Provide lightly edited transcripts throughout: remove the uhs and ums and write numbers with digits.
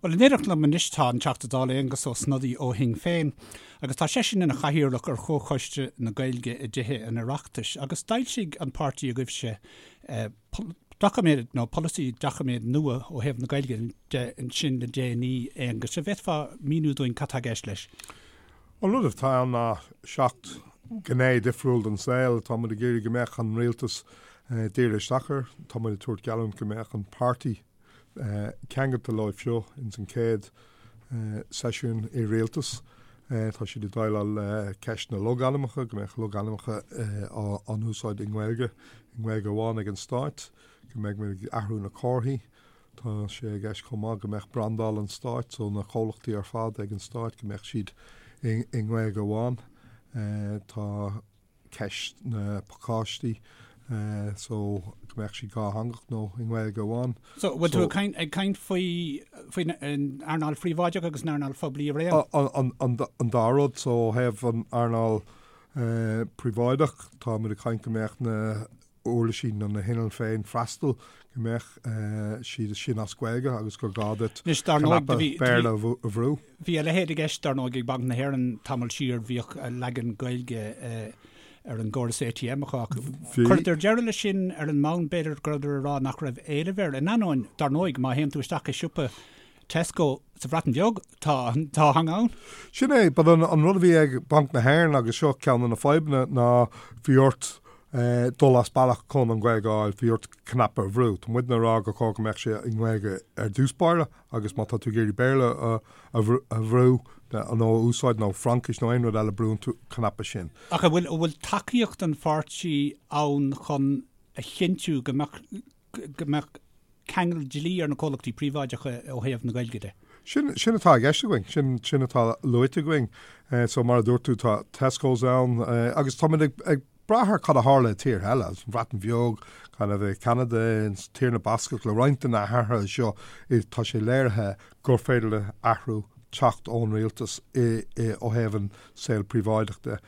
Bhuel, in éineacht liom anois tá an Teachta Dála Aengus Ó Snodaigh ó Shinn Féin agus tá seisean ina chathaoirleach ar Chomhchoiste na Gaeilge i dTithe an Oireachtais agus d'fhoilsigh an páirtí agaibhse doiciméad nó polasaí doiciméad nua ó thaobh na Gaeilge de ansin le déanaí, Aengus. An bhféadfá míniú dúinn cad tá i gceist leis? An rud atá ann ná 7 gné difriúil den saol atá muid ag iarraidh go mbeadh an rialtas dírithe isteach air. Tá muid ag tabhairt geallúint go mbeadh an páirtí ceangailte leo seo ins an chéad seisiún i rialtas. Tá siad ag déileáil le ceist na logainmneacha, go mbeadh logainmneacha á n-úsáid i nGaeilge, i nGaeilge amháin ag an Stáit, go mbeidh muid ag athrú na comharthaí. Tá sé i gceist chomh maith go mbeadh brandáil an Stáit, so na comhlachtaí ar fad ag an Stáit, go mbeadh siad i nGaeilge amháin. Tá. ceist na pacáistí so go mbeadh siad dhátheangach nó i nGaeilge amháin. So bhfuil tú ag caint faoi faoin earnáil phríobháideach agus an earnáil phoiblí araon? An dá rud. So ó thaobh an earnáil príobháideach tá muid ag caint go mbeadh na uirlisí nó na hinnill féin freastal go mbeadh siad sin as Gaeilge agus gur gá duit cnaipe Béarla a bhrú. Bhí a leithéid i gceist, dar ndóigh, ag Banc na hÉireann tamall siar, bhíodh leagan Gaeilge ar an gcóras ATM acu ach chuireadar deireadh leis sin ar an mbonn, b'fhéidir, go rabhadar ag rá nach raibh éileamh air. In ainneoin, dar ndóigh, má théann tú isteach i siopa Tesco sa Bhreatain Bheag, tá an dá theanga ann. Sin é, but an rud a bhí ag Banc na hÉireann, agus seo ceann de na fadhbanna, ná bhí ort dul as bealach chun an Ghaeilge a fháil, bhí ort cnaipe a bhrú. Tá muidne ag rá gur chóir go mbeadh sé i nGaeilge ar dtús báire agus má tá tú ag iarraidh Béarla a bhrú nó a úsáid nó Fraincis nó aon rud eile, brú an cnaipe sin. Ach an bhfuil, an bhfuil tacaíocht an pháirtí ann chun a chinntiú go mbeadh, go mbeadh ceangal dlí ar na comhlachtaí príobháideacha ó thaobh na Gaeilge de. Sin, sin atá i gceist againn, sin, sin atá luaite againn. So mar a dúirt tú, tá Tesco's ann agus táimid ag, ag brath ar cad a tharla i tíortha eile, an Bhreatain Bheag, kind of i Ceanada, in Tír na Bascach, le roinnt de na hathruithe seo, tá sé léirithe gur féidir le athrú teacht ón rialtas i, i, ó thaobh an saol príobháideach de.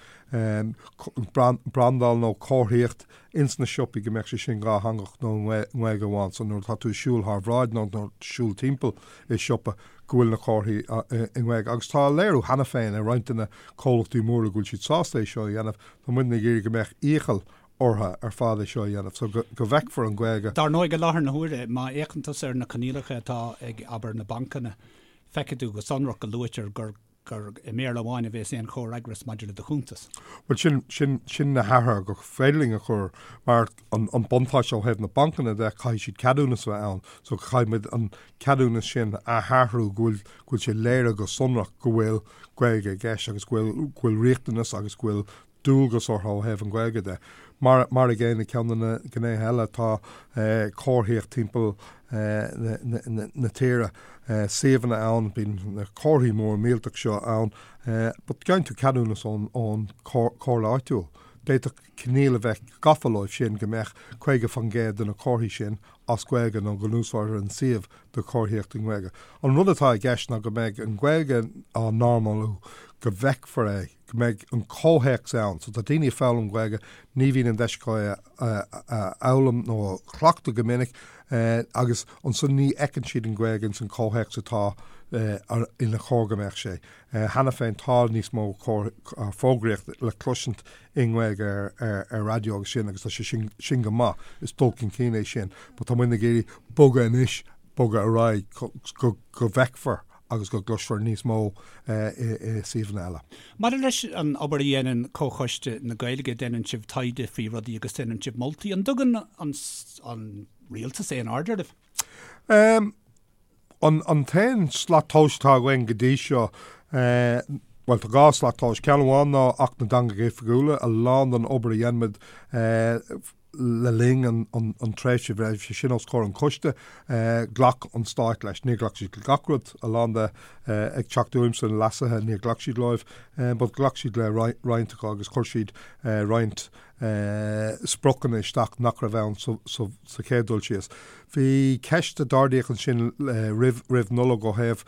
Brandáil nó comharthaíocht ins na siopaí go mbeadh sé sin dhátheangach nó i nGaeilge amháin so nuair atá tú ag siúl thar bhráid nó nuair atá siúl timpeall i siopa go bhfuil na comharthaí i nGaeilge. Agus tá léiriú cheana féin i roinnt de na comhlachtaí móra go bhfuil siad sásta é seo a dhéanamh. Tá muidne ag iarraidh go mbeadh iachall orthu ar fad é seo a dhéanamh so go bhfeicfear an Ghaeilge. Dar ndóigh i láthair na huaire má fhéachann tusa ar na coinníollacha atá ag abair na bancanna feicfidh tú go sonrach go luaitear gur gur i mBéarla amháin a bhéas aon chomhfhreagras maidir le do chuntas. Bhuel, sin, sin, sin na hathruithe gur féidir linn a chur, mar an, an buntáiste ó thaobh na bancanna de, caithfidh siad ceadúnas a bheith ann, so caithfidh muid an ceadúnas sin a athrú go bhfuil, go bhfuil sé léirithe go sonrach go bhfuil Gaeilge i gceist agus go bhfuil, go bhfuil riachtanas agus go bhfuil dualgas orthu ó thaobh an Ghaeilge de. Mar mar an gcéanna, ceann de na gnéithe eile tá comharthaíocht timpeall na tíre, suíomhanna ann, bíonn na comharthaí móra millteach seo ann, but gheibheann tú ceadúnas ón ón comhairle áitiúil. D'fhéadfadh coinníoll a bheith gafa leo sin go mbeadh 50% de na comharthaí sin as Gaeilge nó go n-úsáidtear an suíomh do chomharthaíocht i nGaeilge. An rud atá i gceist ná go mbeidh an Ghaeilge á normalú, go bhfeicfear é, go mbeidh an comhthéacs ann. So tá daoine ag foghlaim Gaeilge, ní bhíonn an deis acu é a fhoghlaim nó a chleachtadh go minic agus ansan ní fheiceann siad an Ghaeilge ins an comhthéacs atá ina chóir go mbeadh sé. Cheana féin tá níos mó fógraíocht le cloisint i nGaeilge ar raidió agus sin agus tá sé sin sin go maith, is dul chun cinn é sin. But tá muid ag iarraidh bogadh anois, bogadh ar aghaidh go go bhfeicfear agus go gcloisfear níos mó i suíomhanna eile. Maidir leis an obair a dhéanann Comhchoiste na Gaeilge, déanann sibh taighde faoi rudaí agus déanann sibh moltaí. An dtugann an an rialtas aon aird oraibh? An t-aon slat tomhais atá againn go dtí seo, bhuel, tá 2 slat tomhais. Ceann amháin ná Acht na dTeangacha Oifigiúla, a lán den obair a dhein muid le linn an tréimhse a bhí sé sin os comhair an choiste, ghlac an Stát leis. Níor ghlac siad le gach rud, a lán de ag teacht uaimse, na leasuithe, níor ghlac siad leo, but ghlac siad le roinnt acu agus chuir siad roinnt spriocanna isteach nach raibh ann sa chéad dul síos. Bhí ceist a d'ardaíodh ansin roimh roimh Nollaig ó thaobh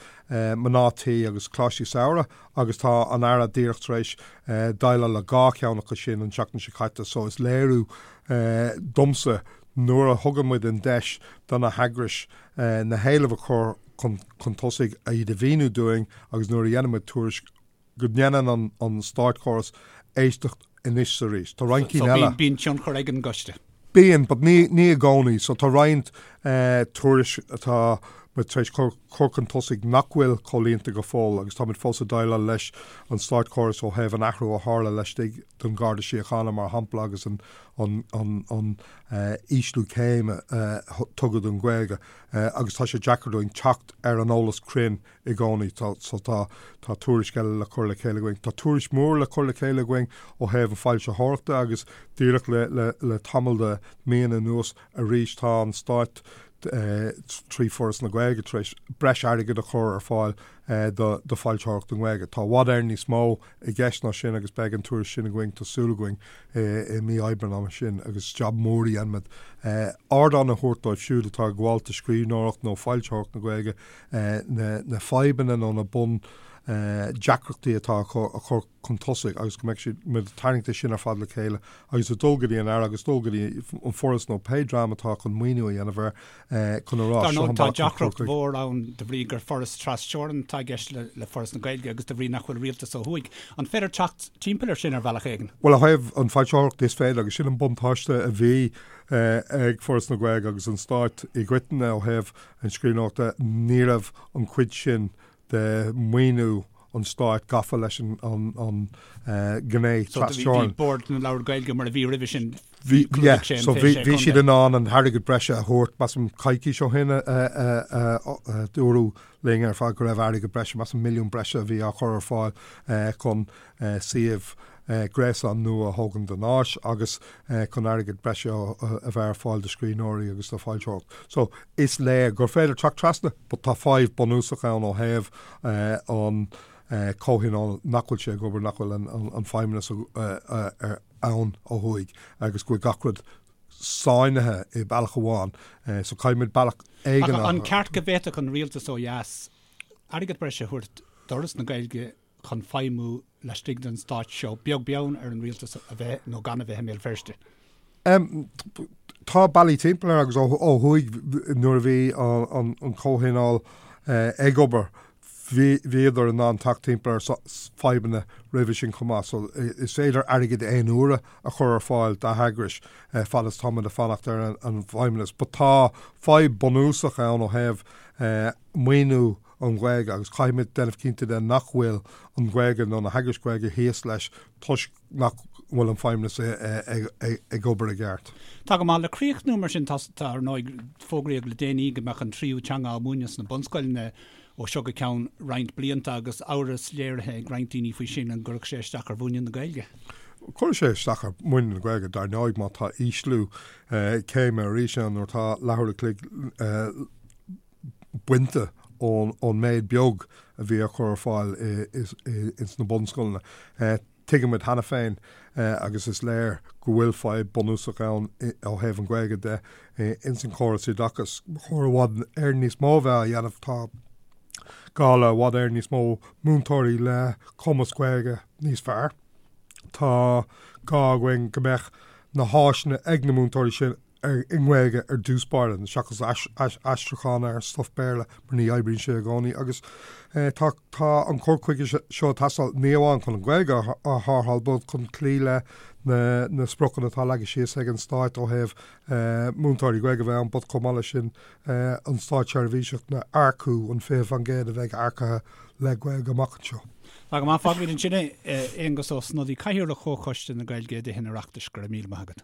mná tí agus coláistí samhraidh agus tá an Aire díreach tar éis déileáil le 2 cheann acu sin an tseachtain seo caite so is léiriú domsa nuair a thugann muid an deis do na heagrais na héilimh a chur. chun tosaigh, iad a mhíniú dúinn agus nuair a dhéanann muid tuairisc go ndéanann an státchóras éisteacht anois is arís. Tá roinnt cinn eile. So bíonn tionchar ag an gcoiste? Bíonn, but ní i gcónaí. So tá roinnt tuairisc atá muid tar éis cur chun tosaigh nach bhfuil comhlíonta go fóill agus táimid fós ag déileáil leis an státchóras ó thaobh an athrú a tharla laistigh den Gharda Síochána mar shampla agus an an ísliú céime a tugadh don Ghaeilge agus tá sé deacair dúinn teacht ar an eolas cruinn i gcónaí. So tá tá tuairisc eile le cur le chéile againn. Tá tuairisc mór le cur le chéile againn ó thaobh an foilsitheoireachta agus díreach le le le tamall de míonna anuas arís tá an Stát trí Foras na Gaeilge tar éis breis airgid a chur ar fáil do do foilsitheoireacht i nGaeilge. Tá i bhfad Éireann níos mó i gceist ná sin agus beidh an tuairisc sin againn, tá súil againn, i mí Aibreáin ama sin agus jab mór a dhéanfaimid. Ardán a thabhairt dóibh siúd atá ag gabháil do scríbhneoireacht nó foilsitheoireacht na Gaeilge, na fadhbanna nó na bun deacrachtaí atá acu a chur chun tosaigh agus go mbeidh siad, muid ag tarraingt é sin ar fad le chéile agus ag dul go dtí an Aire agus dul go dtí an Foras nó pé dream atá chun maoiniú a dhéanamh air chun a rá Dar seo ndóigh an tá bealach chun cur deacracht chuige. mhór ann de bhrí gur foras tras-teorann atá i gceist le Foras na Gaeilge agus de bhrí nach bhfuil rialtas ó thuaidh. An féidir teacht timpeall air sin ar bhealach éigin? Bhuel, ó thaobh an foilsitheoireacht is féidir agus sin an buntáiste a bhí ag Foras na Gaeilge agus an Stát i gcoitinne ó thaobh an scríbhneoireachta, ní raibh an chuid sin de mhaoiniú an stáit gafa leis an ghné So bhí trasteorann. Bord na Leabhar Gaeilge mar a bhí roimhe sin, Bhí, yeah, sé an so bhí, 26 bhí siad in ann an t-airgead breise a thabhairt, measaim coicís ó shin a dúradh linn ar fad go raibh airgead breise, measaim milliún breise a bhí á chur ar fáil chun suíomh gréasáin nua a thógaint don áis agus chun airgead breise a bheith ar fáil do scríbhneoirí agus do foilsitheoireacht. So is léir gur féidir teacht trasna but tá fadhb bunúsach ann ó thaobh an comhthionól nach bhfuil sé ag obair, nach bhfuil an feidhmeannas ann ó thuaidh agus go bhfuil gach rud sáinnithe i bealach amháin. So caithfidh muid bealach éigin a. An ceart go bhféadfadh an rialtas ó dheas airgead breise a thabhairt d'Fhoras na Gaeilge chun feidhmiú laistigh den stát seo, beag beann ar an rialtas a bheith nó gan a bheith i mBéal Feirste. Tá bealaí timpeall air agus ó thuaidh nuair a bhí an comhthionól ag obair bhíodar in ann teacht timpeall ar fadhbanna roimhe sin chomh maith. So is féidir airgead aon uaire a chur ar fáil d'eagrais fad is táimid ag fanacht ar an bhfeidhmeannas. But tá fadhb bunúsach ann ó thaobh maoiniú an Ghaeilge agus caithfimid déanamh cinnte de nach bhfuil an Ghaeilge nó na heagrais Ghaeilge thíos leis toisc nach bhfuil an feidhmeannas ag obair i gceart. Tá go maith. Le críochnú mar sin, tá, ar ndóigh, fógraíodh le déanaí go mbeadh an tríú teanga á múineadh sna bunscoileanna ó seo go ceann roinnt blianta agus amhras léirithe ag roinnt daoine faoi sin an gcuirfeadh sé isteach ar mhúineadh na Gaeilge. Cuirfidh sé isteach ar mhúineadh na Gaeilge, dar ndóigh, má tá ísliú céime arís ann nuair atá leathuair a chloig bainte ón méid beag a bhí á chur ar fáil ins na bunscoileanna. Tuigimid cheana féin agus is léir go bhfuil fadhb bunúsach ann ó thaobh an Ghaeilge de ins an chóras oideachais. Ba chóir i bhfad Éireann níos mó a bheith á dhéanamh. Tá gá le i bhfad Éireann níos mó múinteoirí le cumas Gaeilge níos fearr. Tá gá againn go mbeadh na háiseanna ag na múinteoirí sin i nGaeilge ar dtús báire, seachas aistriúchán ar stuif Béarla, mar ní oibríonn sé i gcónaí. Agus tá tá an cur chuige seo ag teastáil ní amháin chun an Ghaeilge a tharrtháil, but chun cloí le na na spriocanna atá leagtha síos ag an Stát ó thaobh múinteoirí Gaeilge a bheith ann, but chomh maith leis sin an státseirbhíseach a earcú, an 20% a bheidh earcaithe le Gaeilge amach anseo. Tá go maith, fágfaimid ansin é. Aengus Ó Snodaigh, Cathaoirleach Chomhchoiste na Gaeilge i dTithe an Oireachtais, go raibh míle maith agat.